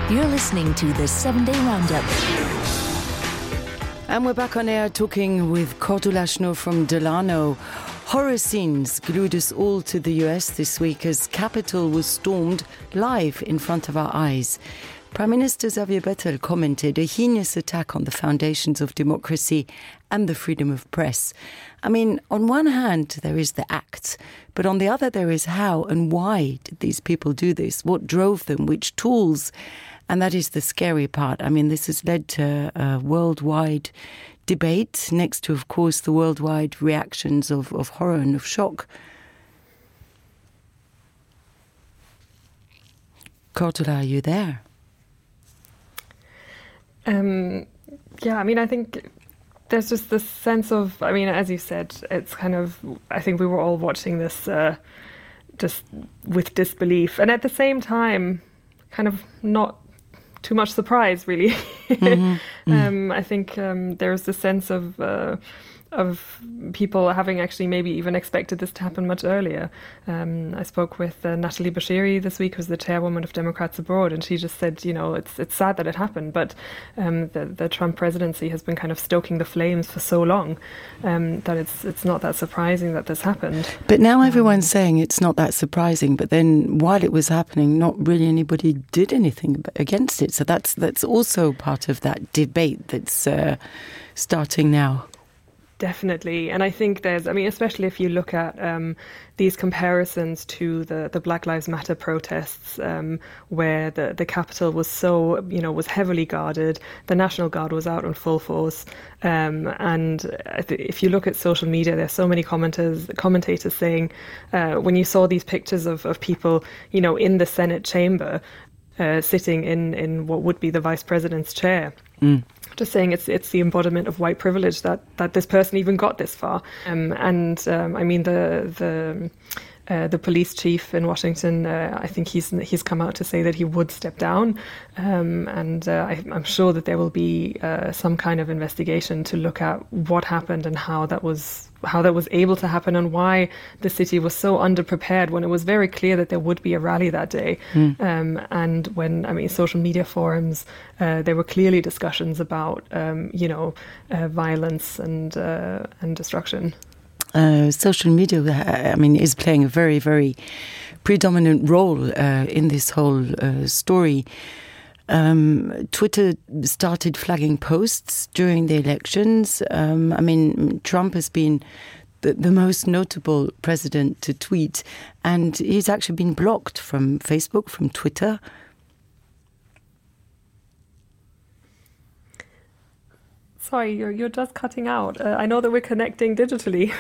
You're listening to the 7-Day Roundup. And we're back on air talking with Cordula Schnur from Delano. Horror scenes glued us all to the US this week as Capitol was stormed live in front of our eyes. Prime Minister Xavier Bettel commented a heinous attack on the foundations of democracy and the freedom of press. I mean, on one hand, there is the acts, but on the other, there is how and why did these people do this? What drove them? Which tools? And that is the scary part. I mean, this has led to a worldwide debate next to, of course, the worldwide reactions of horror and of shock. Cordula, are you there? Yeah, I mean, I think there's just this sense of, I mean, as you said, it's kind of, I think we were all watching this just with disbelief. And at the same time, kind of not too much surprise, really. I think there's this sense of people having actually maybe even expected this to happen much earlier. I spoke with Natalie Bashiri this week, who's the chairwoman of Democrats Abroad, and she just said, you know, it's sad that it happened, but the Trump presidency has been kind of stoking the flames for so long that it's not that surprising that this happened. But now everyone's saying it's not that surprising, but then while it was happening, not really anybody did anything against it. So that's also part of that debate that's starting now. Definitely. And I think there's, I mean, especially if you look at these comparisons to the Black Lives Matter protests, where the Capitol was so, you know, was heavily guarded, the National Guard was out on full force. And if you look at social media, there's so many commentators saying, when you saw these pictures of people, you know, in the Senate chamber, sitting in what would be the vice president's chair, just saying it's the embodiment of white privilege that this person even got this far. I mean, the police chief in Washington, I think he's come out to say that he would step down, I'm sure that there will be some kind of investigation to look at what happened and how that was able to happen, and why the city was so underprepared when it was very clear that there would be a rally that day. And when, I mean, social media forums, there were clearly discussions about violence and destruction. Social media, I mean, is playing a very, very predominant role in this whole story. Twitter started flagging posts during the elections. I mean, Trump has been the most notable president to tweet, and he's actually been blocked from Facebook, from Twitter. Sorry, you're just cutting out. I know that we're connecting digitally,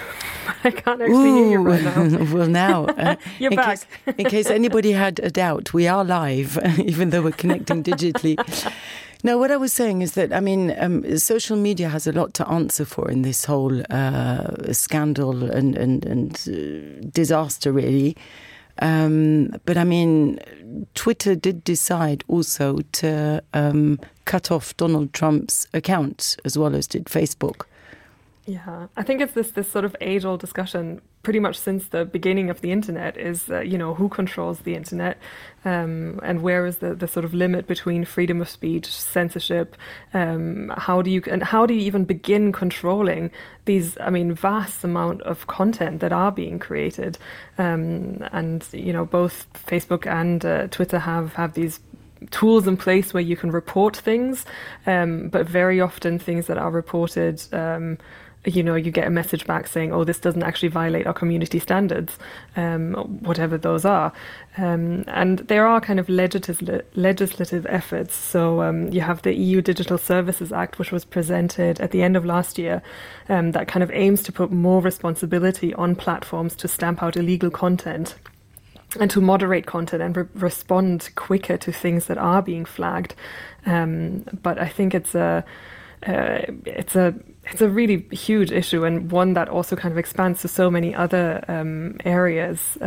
but I can't actually hear you right now. Well, now, you're back. In case anybody had a doubt, we are live, even though we're connecting digitally. No, what I was saying is that, I mean, social media has a lot to answer for in this whole scandal and disaster, really. But I mean, Twitter did decide also to cut off Donald Trump's account, as well as did Facebook. Yeah, I think it's this sort of age-old discussion pretty much since the beginning of the internet is, who controls the internet, and where is the sort of limit between freedom of speech, censorship, how do you even begin controlling these, I mean, vast amount of content that are being created, and both Facebook and Twitter have these tools in place where you can report things, but very often things that are reported, you get a message back saying, oh, this doesn't actually violate our community standards, whatever those are. And there are kind of legislative efforts. So you have the EU Digital Services Act, which was presented at the end of last year, that kind of aims to put more responsibility on platforms to stamp out illegal content and to moderate content and respond quicker to things that are being flagged. But I think it's a really huge issue, and one that also kind of expands to so many other areas.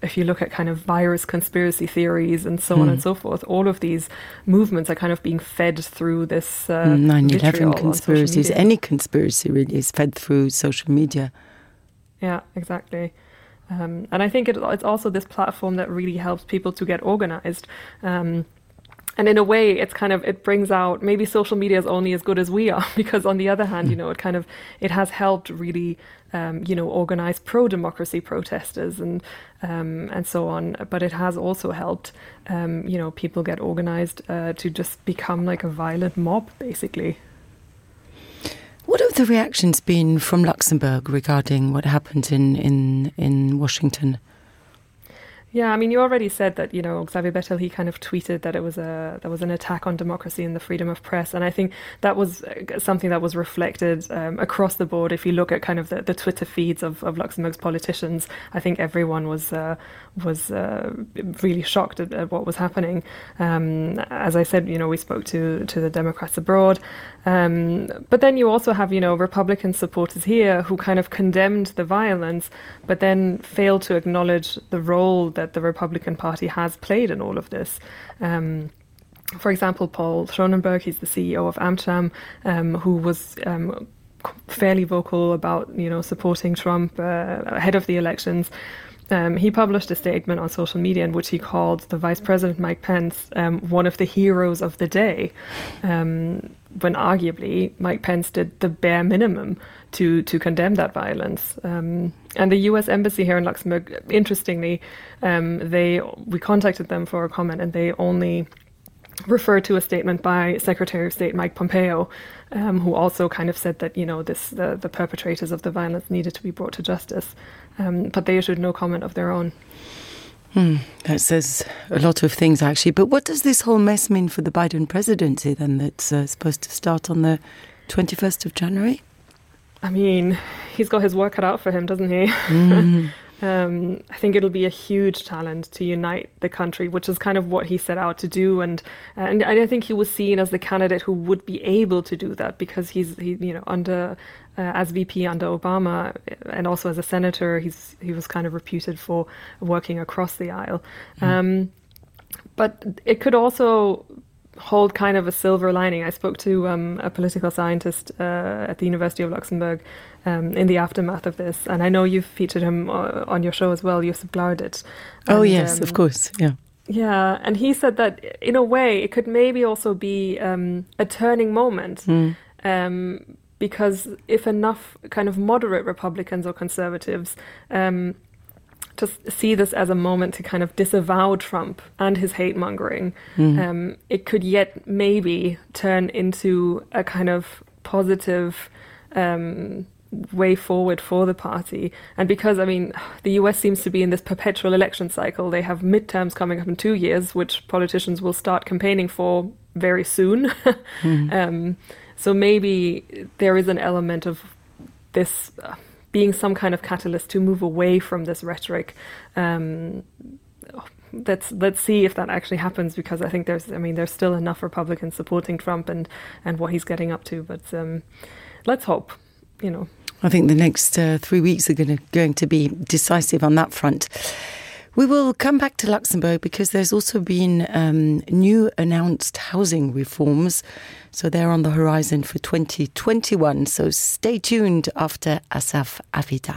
If you look at kind of virus conspiracy theories and so on and so forth, all of these movements are kind of being fed through this 9/11 conspiracies. Any conspiracy really is fed through social media. Yeah, exactly. And I think it's also this platform that really helps people to get organized. And in a way, it brings out, maybe social media is only as good as we are, because on the other hand, it has helped really, organize pro-democracy protesters and so on. But it has also helped, people get organized to just become like a violent mob, basically. What have the reactions been from Luxembourg regarding what happened in Washington? Yeah, I mean, you already said that, Xavier Bettel, he kind of tweeted that there was an attack on democracy and the freedom of press. And I think that was something that was reflected across the board. If you look at kind of the Twitter feeds of Luxembourg's politicians, I think everyone was really shocked at what was happening. As I said, we spoke to the Democrats abroad. But then you also have, Republican supporters here who kind of condemned the violence, but then failed to acknowledge the role that the Republican Party has played in all of this. For example, Paul Schonenberg, he's the CEO of Amcham, who was fairly vocal about, supporting Trump ahead of the elections. He published a statement on social media in which he called the Vice President Mike Pence one of the heroes of the day, when arguably Mike Pence did the bare minimum to condemn that violence. And the U.S. Embassy here in Luxembourg, interestingly, we contacted them for a comment, and they only referred to a statement by Secretary of State Mike Pompeo, who also kind of said that, the perpetrators of the violence needed to be brought to justice. But they issued no comment of their own. That says a lot of things, actually. But what does this whole mess mean for the Biden presidency, then, that's supposed to start on the 21st of January? I mean, he's got his work cut out for him, doesn't he? I think it'll be a huge challenge to unite the country, which is kind of what he set out to do. And I think he was seen as the candidate who would be able to do that, because he under as VP under Obama, and also as a senator, he was kind of reputed for working across the aisle. But it could also hold kind of a silver lining. I spoke to a political scientist at the University of Luxembourg in the aftermath of this, and I know you've featured him on your show as well, Josip Blaudet. Oh, yes, of course, yeah. Yeah, and he said that in a way it could maybe also be a turning moment, because if enough kind of moderate Republicans or conservatives just see this as a moment to kind of disavow Trump and his hate-mongering, it could yet maybe turn into a kind of positive way forward for the party. And because, I mean, the US seems to be in this perpetual election cycle. They have midterms coming up in 2 years, which politicians will start campaigning for very soon. So maybe there is an element of this being some kind of catalyst to move away from this rhetoric. Let's see if that actually happens, because I think there's still enough Republicans supporting Trump and what he's getting up to. But let's hope, I think the next 3 weeks are going to be decisive on that front. We will come back to Luxembourg because there's also been new announced housing reforms. So they're on the horizon for 2021. So stay tuned after Asaf Avidan.